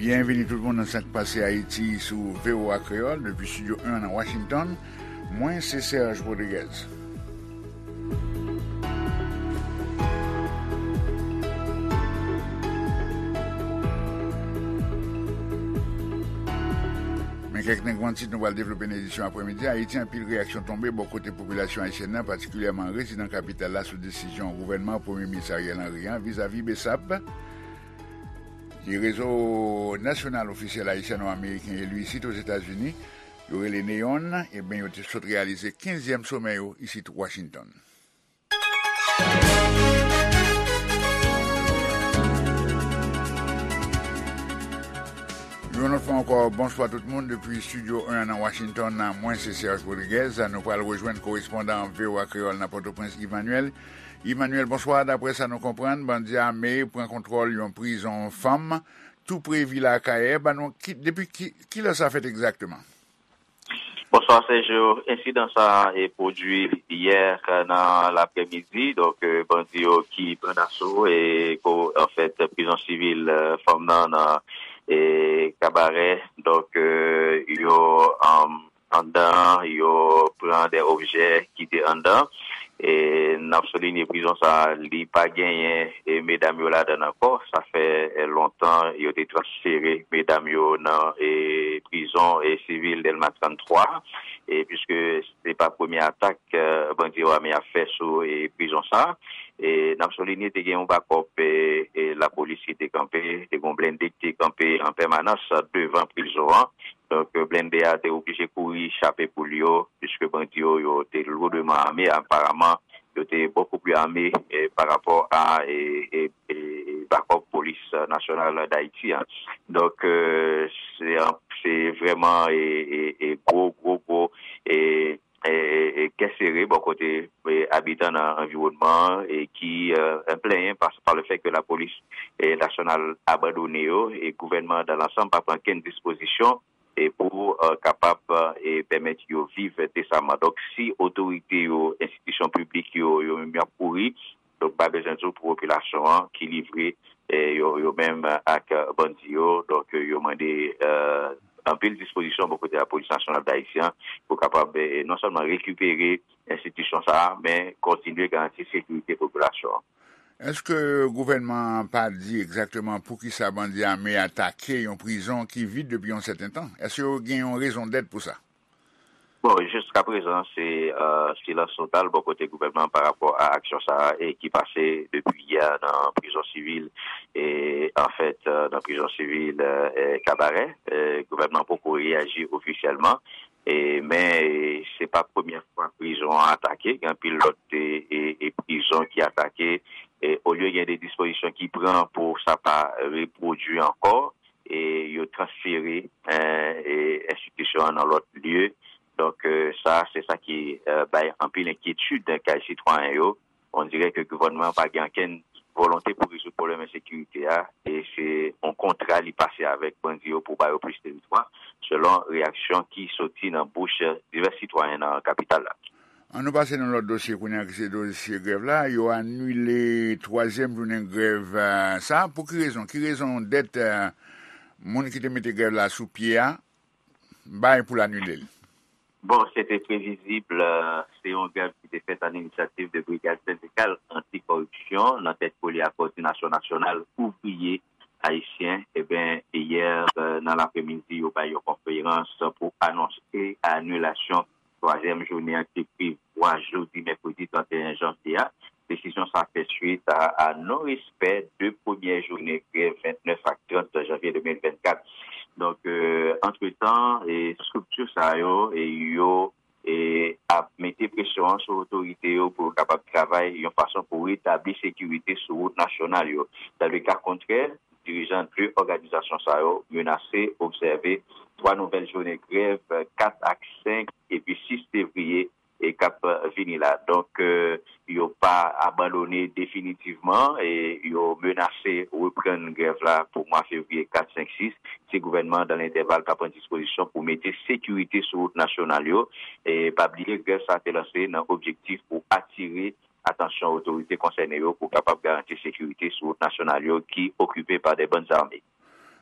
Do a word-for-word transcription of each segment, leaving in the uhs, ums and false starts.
Byenvini tout moun nan Sa k Pase Ayiti sou V O A Kreyòl, depi Estidyo en nan Washington. Mwen se Serge Rodriguez. Men kèk nan gran tit nou pral devlope nan edisyon aprèmidi a. Ayiti, anpil reyaksyon tonbe bò kote popilasyon ayisyèn nan, patikilyèman rezidan kapital la, sou desizyon gouvènman Premye Minis Ariel Henry an vizavi BSAP. Ki rezo nasyonal ofisyèl ayisyano-ameriken eli isit Ozetazini, yo rele NEON, ebyen, yo te sot reyalize kenzyèm somè yo isit Washington. Yon lòt fwa ankò, bonswa tout moun depi Estidyo en nan Washington. Mwen se Serge Rodriguez. Nou pral rejwenn korespondan V O A Kreyòl nan Pòtoprens, Emmanuel. Emmanuel, bonswa. Daprè sa nou konprann, bandi ame pran kontwòl yon prizon fanm tou pre vil Akayè. Ban nou ki, depi ki, kilè sa fèt egzakteman? Bonswa Sergio. Ensidan sa a e pwodui yè nan lapremidi. Donk, eh, bandi yo ki pran daso e ko, anfèt, prizon sivil, eh, fanm nan nan, eh, Kabarè. Donk, eh, yo, um, anndan, yo pran de objè ki te anndan. E n ap soulinye prizon sa a, li pa genyen, e, medam yo ladan l ankò. Sa fè, e, lontan yo te transfere medam yo nan, e, prizon, e, sivil Dèlma trannntwa, e, piske se pa premye atak, e, bandi yo ame ap fè sou, e, prizon sa a. E n ap soulinye te gen yon bakòp, e, e, lapolis ki te kanpe, te gen yon blende ki te kanpe an pèmanans devan prizon an. Donk, blende a te oblije kouri chape poul yo, piske bandi yo, yo te lourdman ame. Aparaman, yo te bokou pli ame, eh, pa rapò a, eh, eh, eh, bakòp polis nasyonal Dayiti an. Donk, eh, se an, se vrèman, eh, eh, eh, gwo, gwo, gwo, eh, eh, eh, kè sere bò kote, eh, abitan nan anviwònman an, eh, ki, eh, plenyen pa, pa le fèt ke lapolis, eh, nasyonal abandone yo, e gouvènman an dan lansanm pa pran kenn dispozisyon e pou, eh, kapab, eh, pèmèt yo viv desamman. Donk, si otorite yo, enstitisyon piblik yo, yo menm y ap kouri, donk, pa bezwen di w pou popilasyon an ki livre, eh, yo, yo menm ak, eh, bandi yo. Donk, eh, yo mande, eh, anpil dispozisyon bò kote lapolis nasyonal dayisyen pou kapab, eh, non sèlman rekipere enstitisyon sa a, men kontinye garanti sekirite popilasyon an. Èske gouvènman an pa di egzakteman poukisa bandi ame atake yon prizon ki vid depi yon sèten tan? Èske yo gen yon rezon dèt pou sa? Bon, jiskaprezan, se, euh, silans total bò kote gouvènman an pa rapò a aksyon sa a e ki pase depi yè nan prizon sivil, e, anfèt, euh, nan prizon sivil, euh, Kabarè. Euh, gouvènman an poko reyaji ofisyèlman. E, men, e, se pa premyè fwa prizon an atake. Gen anpil lòt, e, e, e prizon ki atake. E, olye gen de dispozisyon ki pran pou sa pa repwodui ankò, e, yo transfere, e, e, enstitisyon an nan lòt lye. Donk, e, sa, se sa ki, e, bay anpil enkyetid kay sitwayen yo. On dirè ke gouvènman an pa gen ankenn volonte pou rezoud pwoblèm ensekirite a, e se yon kontra li pase avèk bandi yo pou ba yo plis teritwa, selon reyaksyon ki soti nan bouch divès sitwayen nan kapital la. An nou pase nan lòt dosye kounye a, ki se dosye grèv la. Yo anile twazyèm jounen grèv, eh, sa. Pou ki rezon? Ki rezon dèt, eh, moun ki te mete grèv la sou pye a bay pou l anile l? Bon, se te previzib, eh, se yon grèv ki te fèt an inisyativ de Brigad Sendikal Anti-Kòripsyon nan tèt kole a Kòdinasyon Nasyonal Ouvriye Ayisyen. Eben, yè, eh, nan lapremidi, yo bay yon konferans pou anonse anilasyon twazyèm jounen an ki te prevwa jodi mèkredi trannteyen janvye a. Desizyon sa fè swit a, a non-respè de premyè jounen grèv vennèf ak trant janvye de mil vennkat. Donk, eh, antretan, e estrikti sa yo, e yo, e ap mete presyon an sou otorite yo pou yo kapab travay yon fason pou retabli sekirite sou wout nasyonal yo. Dan le ka kontrè, dirijan de òganizasyon sa yo menase obsève twa nouvèl jounen grèv, kat ak senk epi sis fevriye, e k ap vini la. Donk, eh, yo pa abandone definitivman, e yo menase reprann grèv la pou mwa fevriye kat, senk, sis, si gouvènman an, dan lentèval, pa pran dispozisyon pou mete sekirite sou wout nasyonal yo. E pa bliye, grèv sa a te lanse nan objektif pou atire atansyon otorite konsène yo pou kapab garanti sekirite sou wout nasyonal yo ki okipe pa de bann zame.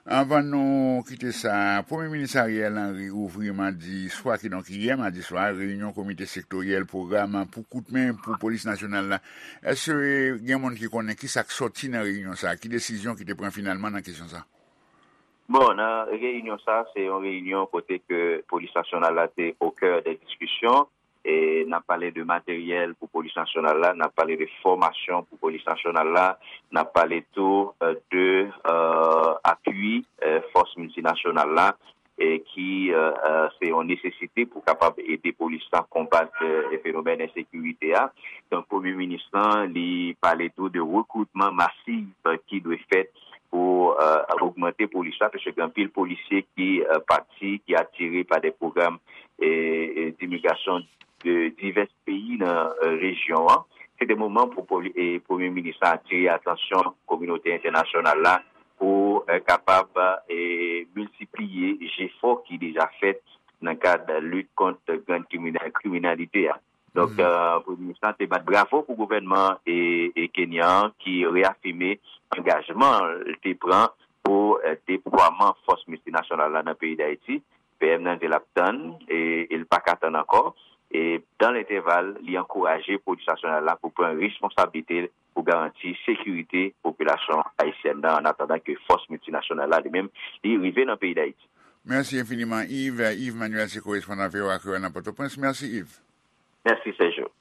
Anvan nou kite sa, Premye Minis Ariel Henry ouvri madi swa, kidonk yè madi swa, reyinyon Komite Sektoryèl Pwogram pou Koutmen pou Polis Nasyonal la. Èske gen moun ki konnen ki sa k sòti nan reyinyon sa a? Ki desizyon ki te pran finalman nan kesyon sa a? Bon, nan reyinyon sa a, se yon reyinyon kote ke Polis Nasyonal la te o kè de diskisyon. E n ap pale de materyèl pou Polis Nasyonal la, n ap pale de fòmasyon pou Polis Nasyonal la, n ap pale tou, euh, de, euh, apui, euh, fòs miltinasyonal la, e ki, euh, euh, se yon nesesite pou kapab ede polis la konbat, euh, fenomèn ensekirite a. Donk, Premye Minis lan, li pale tou de rekritman masif ki dwe fèt pou, euh, ogmante polis la, paske gen anpil polisye ki, euh, pati, ki atire pa de pwogram, e, e, dimigrasyon de divès peyi nan, euh, rejyon an. Se te moman pou poli-, e, Premye Minis la atire atansyon kominote entènasyonal la pou, euh, kapab, e, miltipliye jefò ki deja fèt nan kad lit kont gang krimina-, kriminalite a. Donk, euh, Premye Minis la te bat bravo pou gouvènman e, e Kenya an ki reyafime angajman l te pran pou, euh, deplwaman fòs miltinasyonal la nan peyi Dayiti. P M nan di l ap tann e, e l pa ka tann ankò. E dan lentèval, li ankouraje polis nasyonal la pou pran responsablite l pou garanti sekirite popilasyon ayisyèn nan, an atandan ke fòs miltinasyonal la, li menm, li rive nan peyi Dayiti. Mèsi enfiniman, Yves. Yves Manuel se korespondan V O A Kreyòl nan Pòtoprens. Mèsi, Yves. Mèsi, Sergio.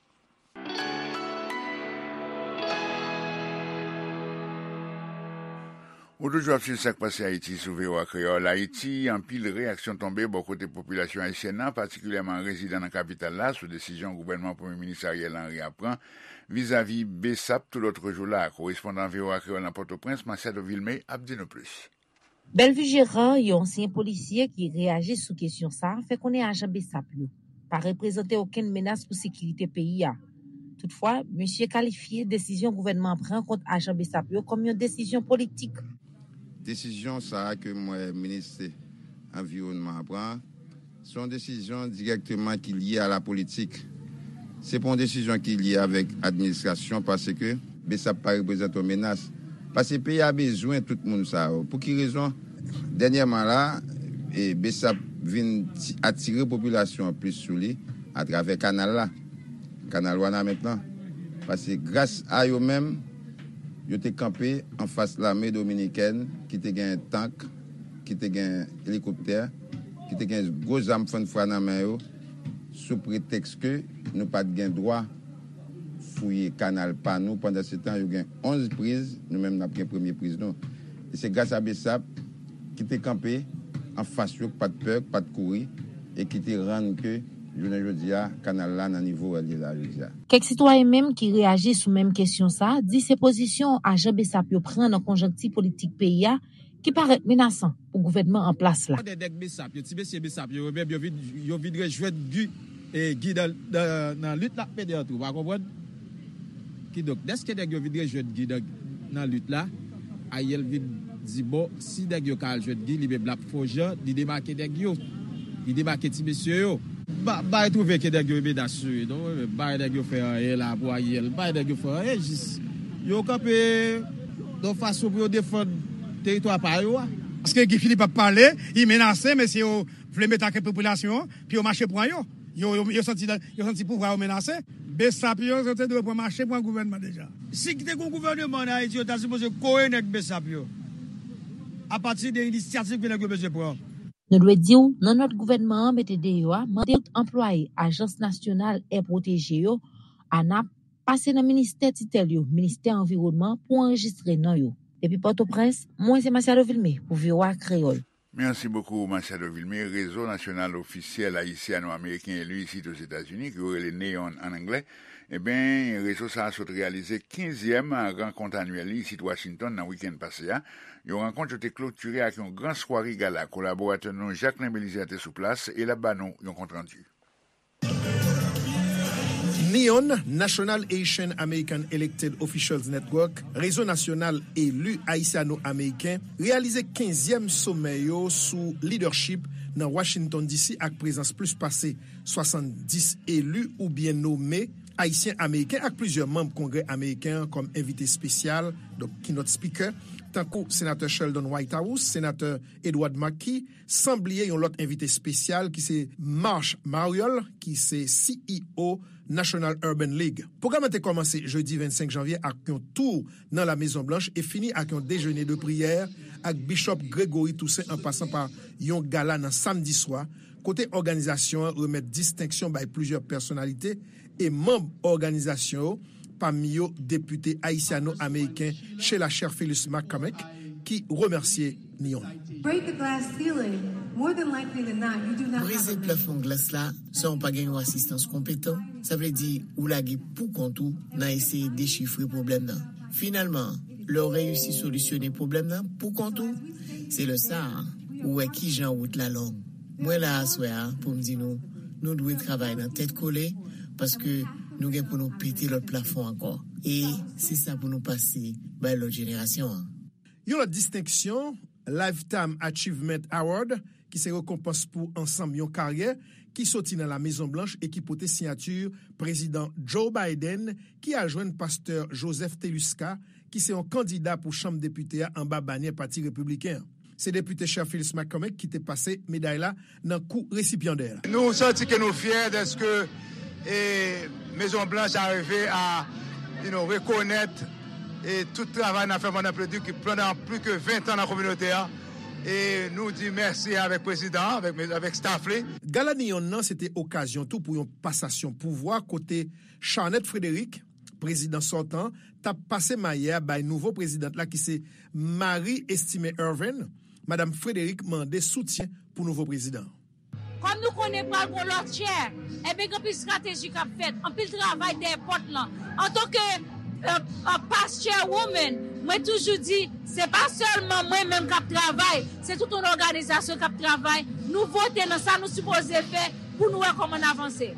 Ou toujou ap swiv Sa k Pase Ayiti sou V O A Kreyòl. Ayiti, anpil reyaksyon tonbe bò kote popilasyon ayisyèn nan, patikilyèman rezidan nan kapital la, sou desizyon gouvènman Premye Minis Ariel Henry a pran vizavi BSAP tou lòt jou la. Korespondan V O A Kreyòl nan Pòtoprens, Machado Vilmé, ap di nou plis. Bellevue Gérard, yon ansyen polisye ki reyaji sou kesyon sa a, fè konnen ajan BSAP yo pa reprezante okenn menas pou sekirite peyi a. Toutfwa, misye kalifye desizyon gouvènman an pran kont ajan BSAP yo kòm yon desizyon politik. Desizyon sa a ke m wè minis anviwònman an pran, se yon desizyon dirèkteman ki lye a la politik. Se pa yon desizyon ki lye avèk administrasyon, paske BSAP pa reprezante yon menas. Paske peyi a bezwen tout moun sa yo. Pou ki rezon? Dènyèman la, e, BSAP vin ti-, atire popilasyon an plis sou li atravè kanal la, kanal Wanament lan. Paske gras a yo menm, yo te kanpe anfas lame dominikèn ki te gen tank, ki te gen elikoptè, ki te gen gwo zam fannfwa nan men yo, sou pretèks ke nou pa t gen dwa fouye kanal pa nou. Pandansetan, yo gen onz priz, nou menm n ap gen premye priz nou. E se gras a BSAP ki te kanpe anfas yo, k pa t pè, k pa t kouri, e ki te rann ke, jounen jodi a, kanal la nan nivo l ye la jodi a. Kèk sitwayen menm ki reyaji sou menm kesyon sa a di se pozisyon ajan BSAP yo pran nan konjonkti politik peyi a ki parèt menasan pou gouvènman an plas la. Kote nèg BSAP yo, ti mesye BSAP yo, yo menm yo vin, yo vin rejwenn Guy, e, Guy nan, nan, nan lit l ap mennen an tou, pa konprann? Kidonk, dèske nèg yo vin rejwenn Guy nan, nan lit la, Ariel vin di, bon, si nèg yo ka al jwenn Guy, li menm l ap fè yon jan, li debake nèg yo. Li debake ti mesye yo. M pa, m pa retwouve ke nèg yo menas sou yo, non. M pa wè nèg yo fè anyen la pou Ariel. M pa wè nèg yo fè anyen, jis yo kanpe yon fason pou yo defann teritwa pa yo a. Paske Guy Philippe ap pale, li menase, mesye yo vle mete ak popilasyon an, pou yo mache pran yo. Yo, yo, yo santi, yo santi pouvwa yo menase. BSAP yo, yo te dwe pran mache pran gouvènman deja. Si te gen gouvènman an Ayiti, yo ta sipoze kore nèg BSAP yo. Apati de inisyativ ke nèg yo bezwen pran. Nou dwe di w, nan nòt gouvènman an mete deyò a, mande tout anplwaye Ajans Nasyonal È Pwoteje yo, ANAP, pase nan ministè titèl yo, Ministè Anviwònman, pou anrejistre non yo. Depi Pòtoprens, mwen se Masiado Vilmé pou V O A Kreyòl. Merci beaucoup, Machado Vilmé. Rezo Nasyonal Ofisyèl Ayisyen-Ameriken eli isit Ozetazini, ke yo rele NEON an anglè, ebyen, rezo sa a sot reyalize kenzyèm rankont anyèl li isit Washington nan wikenn pase a. Yon rankont yo te klotire ak yon gran sware gala. Kolaboratè nou Jacquelin Belizaire te sou plas e l ap ba nou yon kontrandi. NEON, National Asian American Elected Officials Network, Rezo Nasyonal Eli Ayisyano-Ameriken, reyalize kenzyèm somè yo sou leadership nan Washington D C ak prezans plis pase swasanndis eli oubyen nome Ayisyen Ameriken ak plizyè manm Kongrè Ameriken an kòm envite espesyal, donk keynote speaker, tankou Senatè Sheldon Whitehouse, Senatè Edward Markey, san bliye yon lòt envite espesyal ki se Marsh Mariol, ki se C E O National Urban League. Pwogram lan te kòmanse jedi vennsenk janvye ak yon tou nan La Mezon Blanch e fini ak yon dejene de priyè ak Bishop Gregory Toussaint an pasan pa yon gala nan samdi swa, kote òganizasyon an remèt distenksyon bay plizyè pèsonalite e manm òganizasyon yo, pami yo depite ayisyano-ameriken Sheila Cherfilus McCormick, ki remèsye Neon. Break the glass ceiling. More than likely than not, you do not have Brize a plafon glas la san w pa gen yon asistans konpetan, sa vle di ou lage pou kont ou nan eseye dechifre pwoblèm nan. Finalman, lè w reyisi solisyone pwoblèm nan pou kont ou, se lè sa a ou wè kijan wout la long. Mwen la aswè a pou m di nou, nou dwe travay nan tèt kole, paske nou gen pou nou pete lòt plafon ankò. E se sa pou nou pase bay lòt jenerasyon an. Yon lòt distenksyon, Lifetime Achievement Award, ki se rekonpans pou ansanm yon karyè, ki soti nan La Mezon Blanch e ki pote siyati Prezidan Joe Biden, ki al jwenn Pastè Joseph Teluska, ki se yon kandida pou Chanm Depite a anba banyè Pati Repibliken an. Se Depite Cherfilus McCormick ki te pase meday la nan kou resipyandè la. Nou santi ke nou fyè dèske, e, Mezon Blanch a rive a, you know, rekonèt, e, tout travay n ap fè pandan pli, ki, pandan plis ke ven tan nan kominote a. E nou di mèsi avèk prezidan an, avèk, avèk staff li. Gala Neon nan se te okazyon tou pou yon pasasyon pouvwa kote Charnette Frederick, prezidan sòtan, t ap pase maye a bay nouvo prezidan la ki se Marie Estimé Ervin. Madanm Frederick mande soutyen pou nouvo prezidan. Kòm nou konnen pral gon lòt chè, ebyen gen anpil estrateji k ap fèt, anpil travay dèyè pòt lan. Antanke, e, e, past chairwoman, mwen toujou di, se pa sèlman mwen menm k ap travay, se tout yon òganizasyon k ap travay. Nou vote nan sa nou sipoze fè pou nou wè kòman n avanse.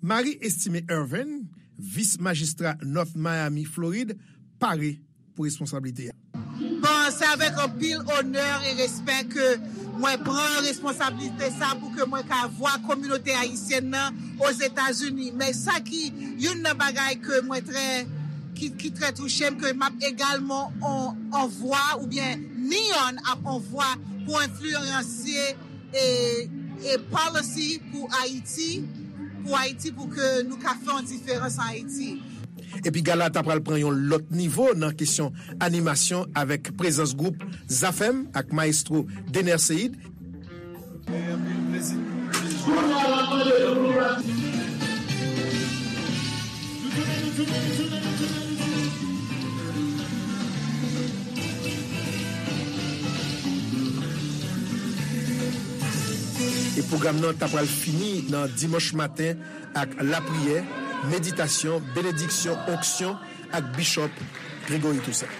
Marie Estimé Ervin, vis majistra North Miami, Florid, pare pou responsablite a. Bon, se avèk anpil onè e respè ke mwen pran responsablite sa pou ke mwen ka vwa kominote ayisyèn nan Ozetazini. Men sa ki youn nan bagay ke mwen trè, ki, ki trè touche m, ke m ap egalman on, on vwa oubyen Neon ap on vwa pou enfliyansye e, e policy pou Ayiti, pou Ayiti, pou ke nou ka fè yon diferans an Ayiti. Epi gala ta pral pran yon lòt nivo nan kesyon animasyon avèk prezans gwoup Zafèm ak mayestwo Dener Ceïde. E pwogram nan ta pral fini nan dimanch maten ak lapriyè, meditasyon, benediksyon, onksyon ak Bishop Gregory Toussaint.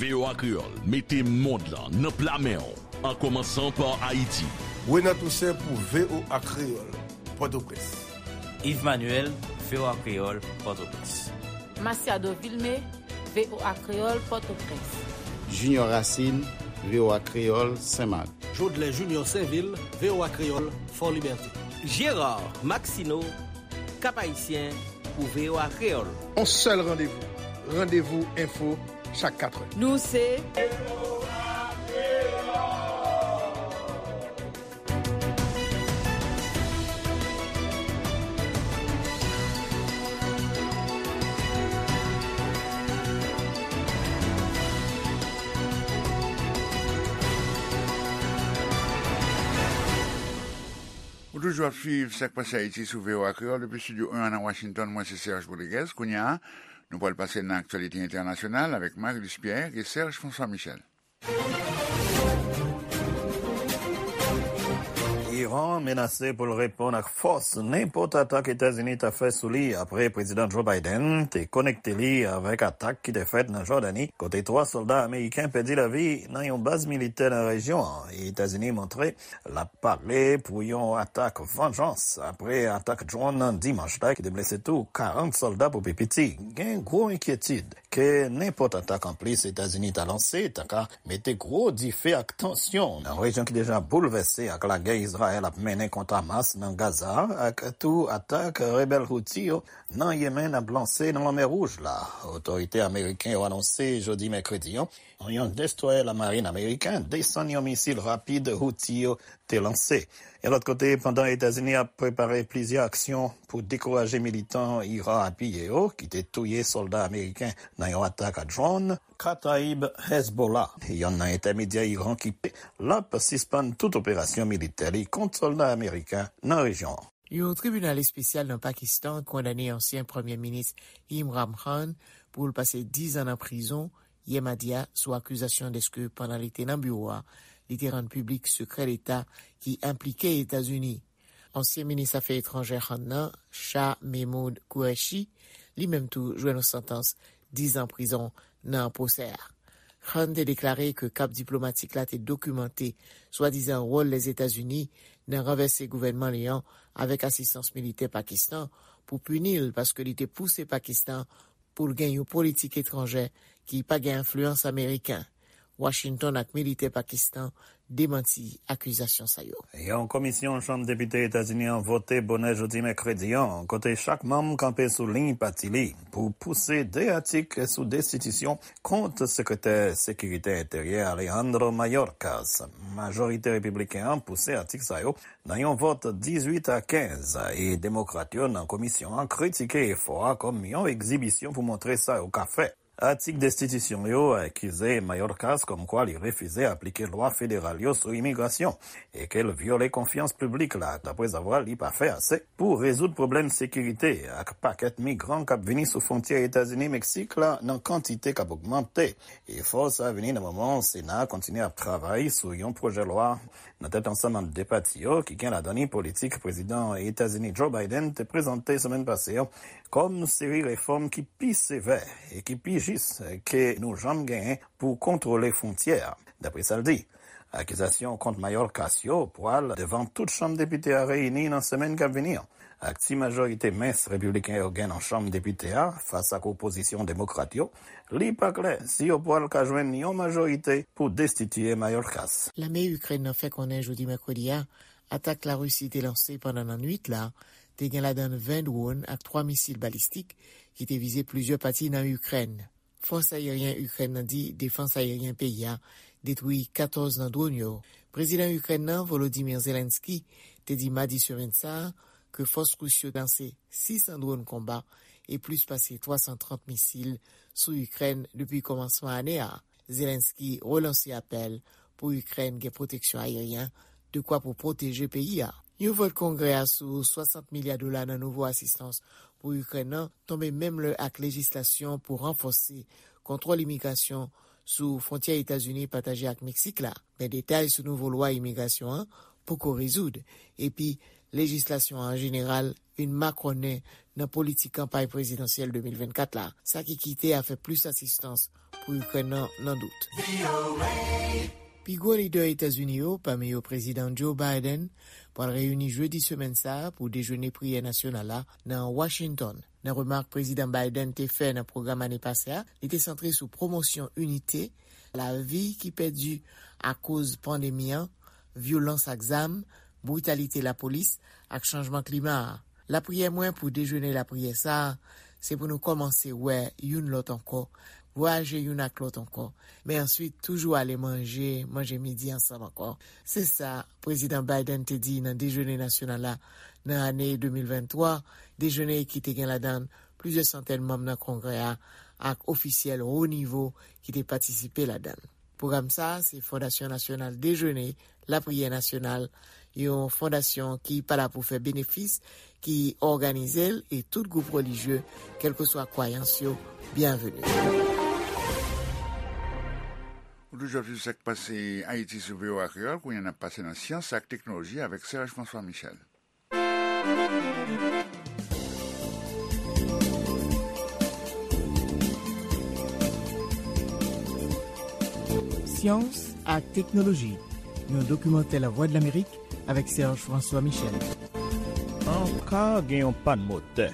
V O A Kreyòl mete mond lan nan pla men w, an kòmansan pa Ayiti. Renan Toussaint pou V O A Kreyòl, Pòtoprens. Yves Manuel, V O A Kreyòl, Pòtoprens. Masiado Vilmé, V O A Kreyòl, Pòtoprens. Junior Racine, V O A Kreyòl, Senmak. Jodlè Junior Sainvil, V O A Kreyòl, Fòlibète. Gérard Maxineau, Cap-Haïtien, pou V O A Kreyòl. On sèl randevou, Randevou Enfo, chak katrè. Nou se Ou toujou ap swiv Sa k Pase Ayiti sou V O A Kreyòl depi Estidyo en an nan Washington. Mwen se Serge Rodriguez. Kounye a, nou pral pase nan aktyalite entènasyonal avèk Marie-Luce Pierre e Serge François Michel. Iran menase pou l reponn ak fòs nenpòt atak Etazini ta fè sou li apre Prezidan Joe Biden te konekte li avèk atak ki te fèt nan Jòdani, kote twa sòlda ameriken pèdi lavi nan yon baz militè nan rejyon an. Etazini montre l ap pare pou yon atak vanjans apre atak dwòn nan dimanch la ki te blese tou karant sòlda pou pi piti. Gen gwo enkyetid ke nenpòt atak anplis Etazini ta lanse ta ka mete gwo dife ak tansyon nan rejyon ki deja boulvèse ak lagè Izrayèl ap mennen kont Hamas nan Gaza ak tou atak rebèl Houthi yo nan Yemen ap lanse nan Lanmè Wouj la. Otorite ameriken yo anonse jodi mèkredi an, yon destwayè lamarin ameriken desann yon misil rapid Houthi yo te lanse. Yon lòt kote, pandan Etazini ap prepare plizyè aksyon pou dekouraje militan Iran apiye yo, ki te touye sòlda ameriken nan yon atak a drone, Kataib Hezbollah, yonn nan entèmedyè Iran ki pe, l ap sispann tout operasyon militè li kont sòlda ameriken nan rejyon an. Yon tribinal espesyal nan Pakistan kondane ansyen Premye Minis Imran Khan pou l pase diz an nan prizon yè madi a sou akizasyon dèske pandan li te nan biwo a, li te rann piblik sekrè deta ki enplike Etazini. Ansyen minis afè etranjè Khan nan, Shah Mehmood Qureshi, li menm tou jwenn yon santans diz an prizon nan pwosè a. Khan te deklare ke kap diplomatik la te dokimante swadizan wòl Lèzetazini nan ranvèse gouvènman li an avèk asistans militè Pakistan pou pini l paske li te pouse Pakistan pou l gen yon politik etranjè ki pa gen enfliyans ameriken. Washington ak militè Pakistan demanti akizasyon sa yo. Yon komisyon Chanm Depite Etazini an vote bonè jodi mèkredi an, kote chak manm kanpe sou liy pati li pou pouse de atik sou destitisyon kont Sekretè Sekirite Enteryè Alejandro Mayorkas. Majorite repibliken an pouse atik sa yo nan yon vòt dizuit a kenz, e Demokrat yo nan komisyon an kritike efò a kòm yon egzibisyon pou montre sa yo ka fè. Atik destitisyon yo akize Mayorkas kòmkwa li refize aplike lwa federal yo sou imigrasyon e ke l vyole konfyans piblik la, daprezavwa li pa fè ase pou rezoud pwoblèm sekirite ak pakèt migran k ap vini sou fwontyè Etazini-Meksik la nan kantite k ap ogmante. Efò sa a vini nan moman Sena a kontinye ap travay sou yon pwojè lwa nan tèt ansanm ant de pati yo ki gen ladan li politik Prezidan Etazini Joe Biden te prezante semèn pase an kòm seri refòm ki pi sevè e ki pi jis ke nou janm genyen pou kontwole fwontyè a, dapre sa l di. Akizasyon kont Mayorkas yo pwal devan tout Chanm Depite a reyini nan semèn k ap vini an. Ak ti majorite mens repibliken yo gen nan Chanm Depite a fas ak opozisyon demokrat yo, li pa klè si yo pwal ka jwenn yon majorite pou destitiye Mayorkas. Lame Ikrèn nan fè konnen jodi mèkredi a, atak Larisi te lanse pandan lannwit la te gen ladan l ven dwòn ak twa misil balistik ki te vize plizyè pati nan Ikrèn. Fòs ayeryen Ikrèn nan di defans ayeryen peyi a detwi katòz nan dwòn yo. Prezidan Ikrèn nan, Volodymyr Zelensky, te di madi semèn sa a ke fòs ris yo lanse sis san dwòn konba e plis pase twa san trant misil sou Ikrèn depi kòmansman ane a. Zelensky relanse apèl pou Ikrèn gen pwoteksyon ayeryen dekwa pou pwoteje peyi a. Yon vòt Kongrè a sou swasant milya dola nan nouvo asistans pou Ikrèn nan tonbe menm lè ak lejislasyon pou ranfòse kontwòl imigrasyon sou fwontyè Etazini pataje ak Meksik la. Men detay sou nouvo lwa imigrasyon an poko rezoud, epi lejislasyon an an jeneral vin makònen nan politik kanpay prezidansyèl de mil vennkat la, sa ki kite afè plis asistans pou Ikrèn nan nan dout. Pi gwo lidè Etazini yo, pami yo Prezidan Joe Biden, pral reyini jedi semèn sa a pou dejene priyè nasyonal la nan Washington. Nan remak Prezidan Biden te fè nan pwogram ane pase a, li te santre sou pwomosyon inite, lavi ki pèdi akoz pandemi an, vyolans ak zam, britalite lapolis, ak chanjman klima a. Lapriyè mwen pou dejene lapriyè sa a, se pou nou kòmanse wè youn lòt ankò, vwayaje youn ak lòt ankò, men answit toujou ale manje, manje midi ansanm ankò. Se sa Prezidan Biden te di nan dejene nasyonal la nan ane de mil venntwa, dejene ki te gen ladan l plizyè santèn manm nan Kongrè a ak ofisyèl wo nivo ki te patisipe ladan l. Pwogram sa a se Fondasyon Nasyonal Dejene Lapriyè Nasyonal, yon fondasyon ki pa la pou fè benefis, ki òganize l, e tout gwoup relijye, kèlkeswa kwayans yo, byenveni. Ou toujou ap swiv sa k pase Ayiti sou V O A Kreyòl, kounye a n ap pase nan syans ak teknoloji avèk Serge François Michel. Syans ak teknoloji, yon dokimantè Lavwadlamerik avèk Serge François Michel. Yon ka gen yon pàn motè.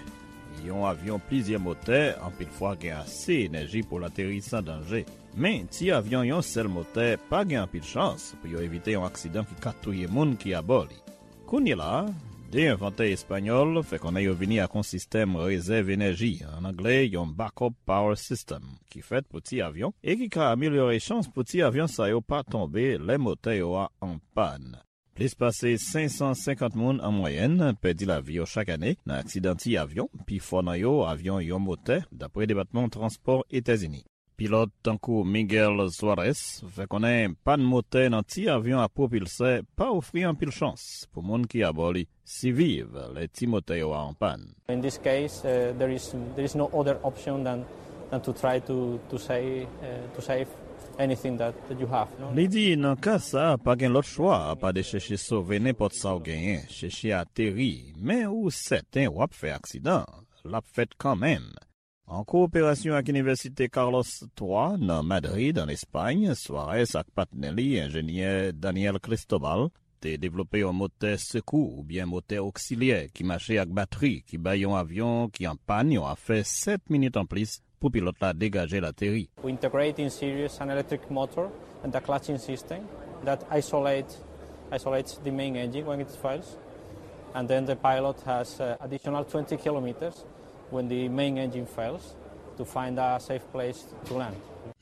Yon avyon plizyè motè anpil fwa gen ase enèji pou l ateri san danje. Men, ti avyon yon sèl motè pa gen anpil chans pou yo evite yon aksidan ki ka touye moun ki abò li. Kounye la a, de envantè espanyòl fè konnen yo vini ak yon sistèm rezèv enèji, an anglè yon backup power system, ki fèt pou ti avyon e ki ka amelyore chans pou ti avyon sa yo pa tonbe lè motè yo a an pàn. Plis pase senk san senkant moun an mwayèn pèdi lavi yo chak ane nan aksidan ti avyon, pifò nan yo avyon yon motè, dapre Depatman Transpò Etazini. Pilòt tankou Miguel Suarez fè konnen pàn motè nan ti avyon a pwopilsè pa ofri anpil chans pou moun ki abò li siviv lè ti motè yo a an pàn. In this case, uh, there is there is no other option than than to try to to save uh, to save anything that, that you have. No? Li di, nan ka sa a, pa gen lòt chwa apa de chèche sove nenpòt sa w genyen, chèche ateri, men ou sèten w ap fè aksidan, l ap fèt kanmenm. An kowoperasyon ak Inivèsite Carlos twa nan Madrid, an Espay, Suarez ak patnè li, enjenyè Daniel Cristobal, te devlope yon motè sekou oubyen motè oksilyè ki mache ak batri, ki bay yon avyon ki an pàn yon afè sèt minit anplis pou pilòt la degaje l ateri. We integrate in series an electric motor and a clutching system that isolate, isolates the main engine when it fails. And then the pilot has uh, additional twenty kilometers when the main engine fails to find a safe place to land.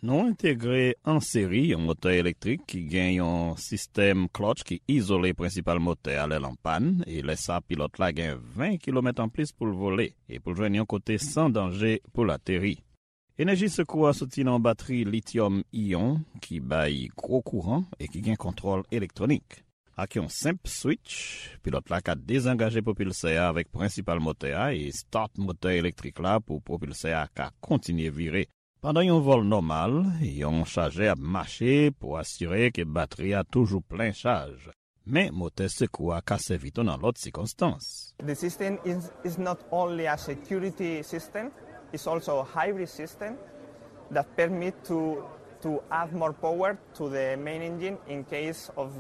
Nou entegre an seri yon motè elektrik ki gen yon sistèm klòtch ki izole prensipal motè a lè l an pàn, e lè sa a pilòt la gen ven kilomèt anplis pou l vole e pou l jwenn yon kote san danje pou l ateri. Enèji sekou a soti nan yon batri lityòm iyon ki bay gwo kouran e ki gen kontwòl elektwonik. Ak yon senp switch, pilòt la ka dezangaje pwopilsè a avèk prensipal motè a e start motè elektrik la pou pwopilsè a ka kontinye vire. Pandan yon vòl nòmal, yon chajè ap mache pou asire ke batri a toujou plen chaj. Men motè sekou a ka sèvi tou nan lòt sikonstans. The system is, is not only a security system, it's also a hybrid system that permit to, to add more power to the main engine in case of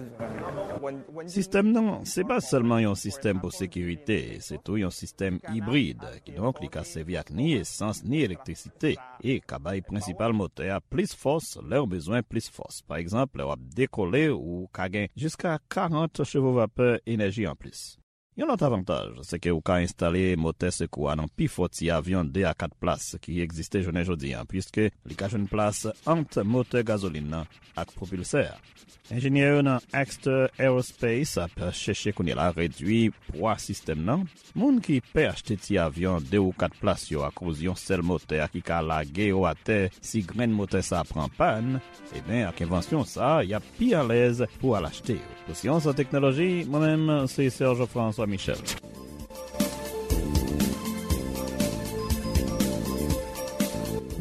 when, when Sistèm nan, se pa sèlman yon sistèm pou sekirite, se tou yon sistèm ibrid, kidonk li ka sèvi ak ni esans ni elektrisite, e ka bay prensipal motè a plis fòs lè w bezwen plis fòs. Pa egzanp, lè w ap dekole, ou ka gen jiska karant chevo vapè enèji anplis. Yon lòt avantaj, se ke ou ka enstale motè sekou a nan pifò ti avyon de a kat plas ki egziste jounen jodi a, piske li ka jwenn plas ant motè gazolin nan ak pwopilsè a. Enjenyè yo nan Exter Aerospace ap chèche kounye la redui pwa sistèm nan. Moun ki pè achte ti avyon de ou kat plas yo akoz yon sèl motè a ki ka lage yo atè si grenn motè sa a pran pàn, ebyen, ak envansyon sa a, y ap pi alèz pou al achte yo. Pou Syans ak Teknoloji, mwen menm, se Serge François Michel.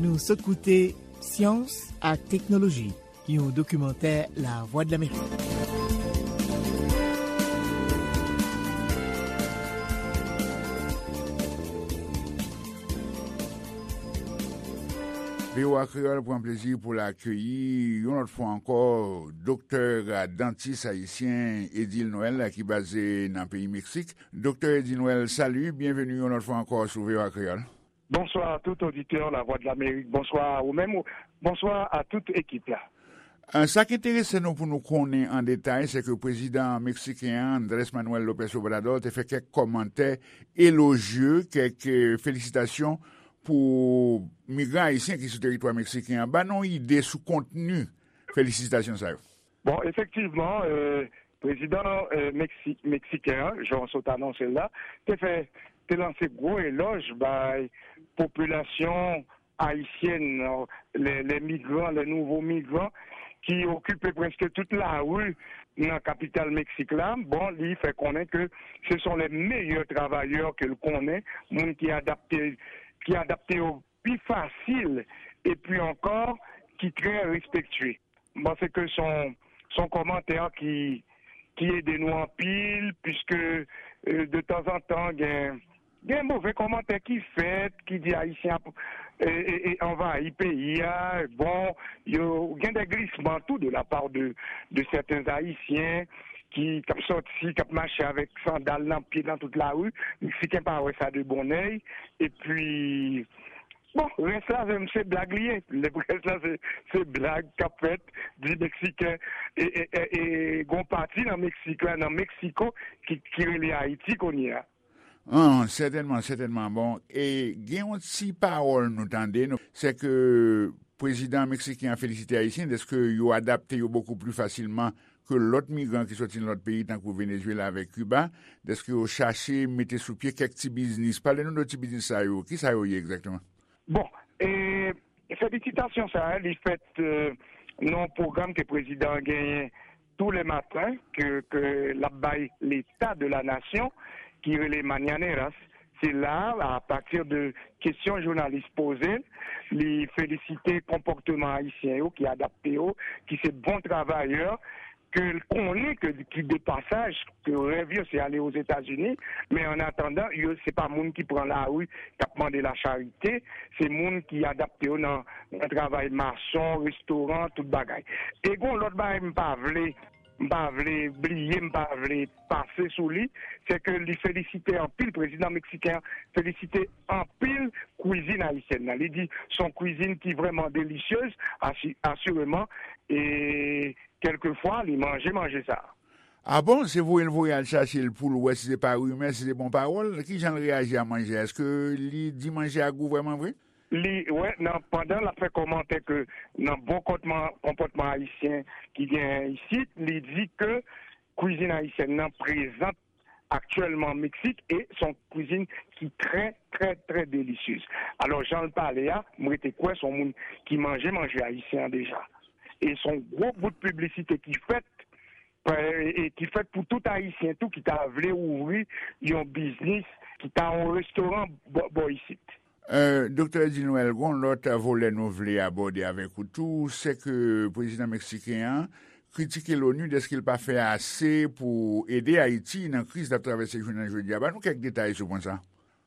Nou sot koute Syans ak Teknoloji, yon dokimantè Lavwadlamerik. V O A Kreyòl pran plezi pou l akeyi yon lòt fwa ankò doktè, dantis ayisyen Edil Noël ki baze nan peyi Meksik. Doktè Edil Noël, salut, byenveni yon lòt fwa ankò sou V O A Kreyòl. Bonsoir à tout auditeur La Voix de l'Amérique. Bonsoir à vous-même. Bonsoir à toute équipe là. Euh, sa ki enterese nou pou nou konnen an detay, se ke prezidan meksiken an, Andrés Manuel López Obrador, te fè kèk kòmantè elojye, kèk, euh, felisitasyon pou migran ayisyen ki sou teritwa meksiken an. Ban nou ide sou kontni felisitasyon sa yo. Bon, efektivman, euh, prezidan euh, Meksi- meksiken an, jan w sot anonse l la, te fè, te lanse gwo elòj bay popilasyon ayisyèn, euh, les, les migrants, les nouveaux migrants, ki okipe prèske tout lari nan kapital Meksik la. Bon, li fè konnen ke ce sont les meilleurs travailleurs ke l konnen, moun ki adapte, ki adapte yo pi fasil, epi ankò, ki trè respektye. M panse ke se yon, se yon kòmantè ki, ki ede nou anpil, piske, euh, de tanzantan, gen, gen move kòmantè ki fèt, ki di Ayisyen ap, e, e, e, anvayi peyi a. Bon, yo, gen de glisman tou de la part de, de certains Haïtiens ki, k ap sòti, k ap mache avèk sandal nan pye nan tout lari. Meksiken pa wè sa de bon èy. Epi, bon, rès la, se, se blag li ye. Le rès la, se, se blag k ap fèt, di Meksiken, e, e, e, e gon pati nan Meksik la, nan Meksiko, ki, ki rele Ayiti kounye a. An, sètènman, sètènman. Bon, e gen yon ti pawòl nou tande, nou, se ke prezidan meksiken an felisite Ayisyen dèske yo adapte yo bokou pli fasilman ke lòt migran ki sòti nan lòt peyi, tankou Venezuela avèk Kiba, dèske yo chache mete sou pye kèk ti biznis. Pale nou de ti biznis sa yo. Ki sa yo ye egzakteman? Bon, e, felisitasyon sa a, li fèt, e, nan yon pwogram ke prezidan an genyen tou lè maten, ke, ke l ap bay Leta de la Nasyon, ki rele Mañaneras. Se la, apati de kesyon jounalis poze, li felisite konpòteman ayisyen yo ki adapte yo, ki se bon travayè, ke l konnen ke, ki de pasaj, ke rèv yo se ale Ozetazini, men an atandan, yo se pa moun ki pran lari, k ap mande lacharite, se moun ki adapte yo nan, nan travay mason, restoran, tout bagay. E gon lòt bagay m pa vle, m pa vle bliye, m pa vle pase sou li, se ke li felisite anpil, prezidan meksiken an felisite anpil kwizin ayisyèn nan. Li di se yon kwizin ki vrèman delisyez, asi-, asireman, e kèlkefwa, li manje manje sa a. A bon? Se voye l voye al chache l pou l wè si se pa rimè, si se bon pawòl? Ki jan l reyaji a manje a? Èske li di manje a gou vrèman vre? Li, wè, nan, pandan l ap fè kòmantè ke nan bon kòtman, konpòtman ayisyen ki genyen isit, li di ke kwizin ayisyèn nan prezan aktyèlman Meksik e se yon kwizin ki trè, trè, trè delisyez. Alò, jan l pale a, m rete kwè se yon moun ki manje manje ayisyen an deja. E se yon gwo bout piblisite ki fèt, e, e ki fèt pou tout Ayisyen tou ki ta vle ouvri yon biznis, ki ta yon restoran bò, bò isit. E, Doktè Edil Noël, gon lòt volè nou vle abòde avèk ou tou, se ke prezidan meksiken an kritike l'ONU dèske l pa fè ase pou ede Ayiti nan kriz l ap travèse jounen jodi a. Ban nou kèk detay sou pwen sa.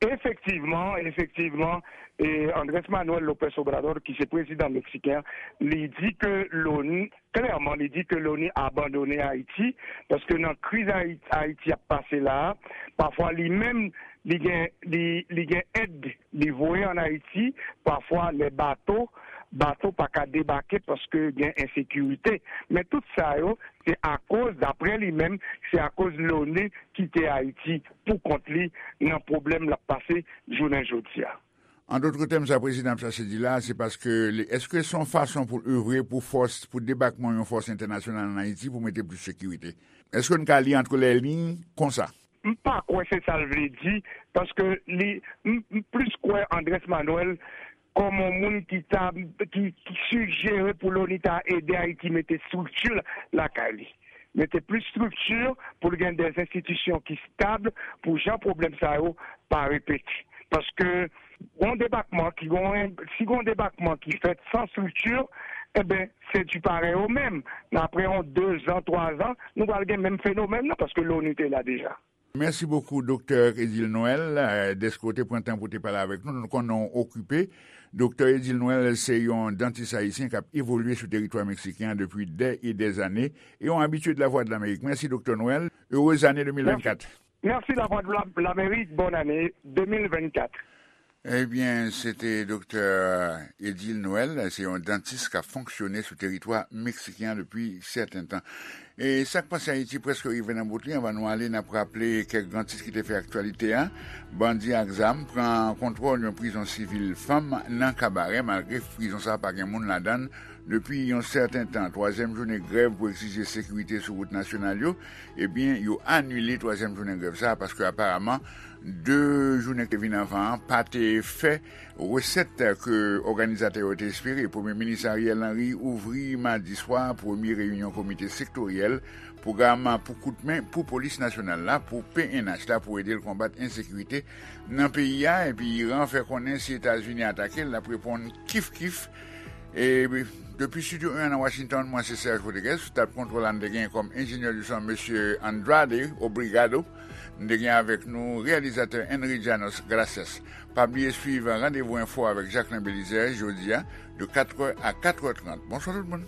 Efektivman, efektivman, e Andrés Manuel López Obrador, ki se prezidan meksiken an, li di ke l'ONU, klèman, li di ke l'ONU abandone Ayiti, paske nan kriz Ayi-, Ayiti ap pase la a, pafwa li menm, li gen, li, li gen èd, li voye ann Ayiti, pafwa lè bato, bato pa ka debake paske gen ensekirite. Men tout sa yo, se akoz, daprè li menm, se akoz l'ONU kite Ayiti pou kont li nan pwoblèm l ap pase jounen jodi a. An dòt tèm, sa prezidan ap chache di la, se paske li, èske se yon fason pou l evre pou fòs, pou debakman yon fòs entènasyonal ann Ayiti pou mete plis sekirite? Èske n ka li antre lè liy konsa? M pa kwè se sa l vle di, paske li, m, m plis kwè Andrés Manuel kòm yon moun ki ta, ki, ki sijere pou l'ONU ta ede Ayiti mete estrikti lakay li. Mete plis estrikti pou l gen de enstitisyon ki estab pou jan pwoblèm sa yo pa repete. Paske yon debakman ki gon, si gon debakman ki fèt san estrikti, enben, se di parèy o menm. Nan apre yon de zan, twa zan, nou pral gen menm fenomèn nan, paske l'ONU te la deja. Mèsi bokou, Doktè Edil Noël, eh, dèske w te pran tan pou te pale avèk nou. Nou konnen w okipe. Doktè Edil Noël se yon dantis ayisyen k ap evolye sou teritwa meksiken an depi dè e dè zane e yon abitye de Lavwadlamerik. Mèsi, Doktè Noël. Erez ane de mil vennkat. Mèsi. Mèsi, Lavwadlamerik. Bòn ane de mil vennkat. Ebyen, se te Doktè Edil Noël, se yon dantis k ap fonksyone sou teritwa meksiken an depi sèten tan. E sa k pase Ayiti prèske rive nan bout li, anvan nou ale, n ap raple kèk gran tit ki te fè aktyalite a. Bandi ak zam pran kontwòl yon prizon sivil fanm nan Kabarè, malgre prizon sa a pa gen moun ladan l depi yon sèten tan. Twazyèm jounen grèv pou egzije sekirite sou wout nasyonal yo, ebyen, yo anile twazyèm jounen grèv sa a, paske aparaman, de jounen ki te vin anvan an pa te fè resèt ke òganizatè yo te espere. Premye minis Ariel Henry ouvri madi swa premye reyinyon komite sektoryèl pwogram pou koutmen pou polis nasyonal la, pou P N H la, pou ede l konbat ensekirite nan peyi a. Epi Iran fè konnen si Etazini atake l, l ap reponn kif kif. E depi Studio un an nan Washington, mwen se Serge Rodriguez. Sou tab kontwòl la, n te gen kòm enjenyè di son Mesye Andrade Obrigado. N te gen avèk nou reyalizatè Henry Janos Gracias. Pa bliye swiv Randevou Enfo avèk Jacquelin Belizaire jodi a de katrè a katrè trant. Bonswa tout moun.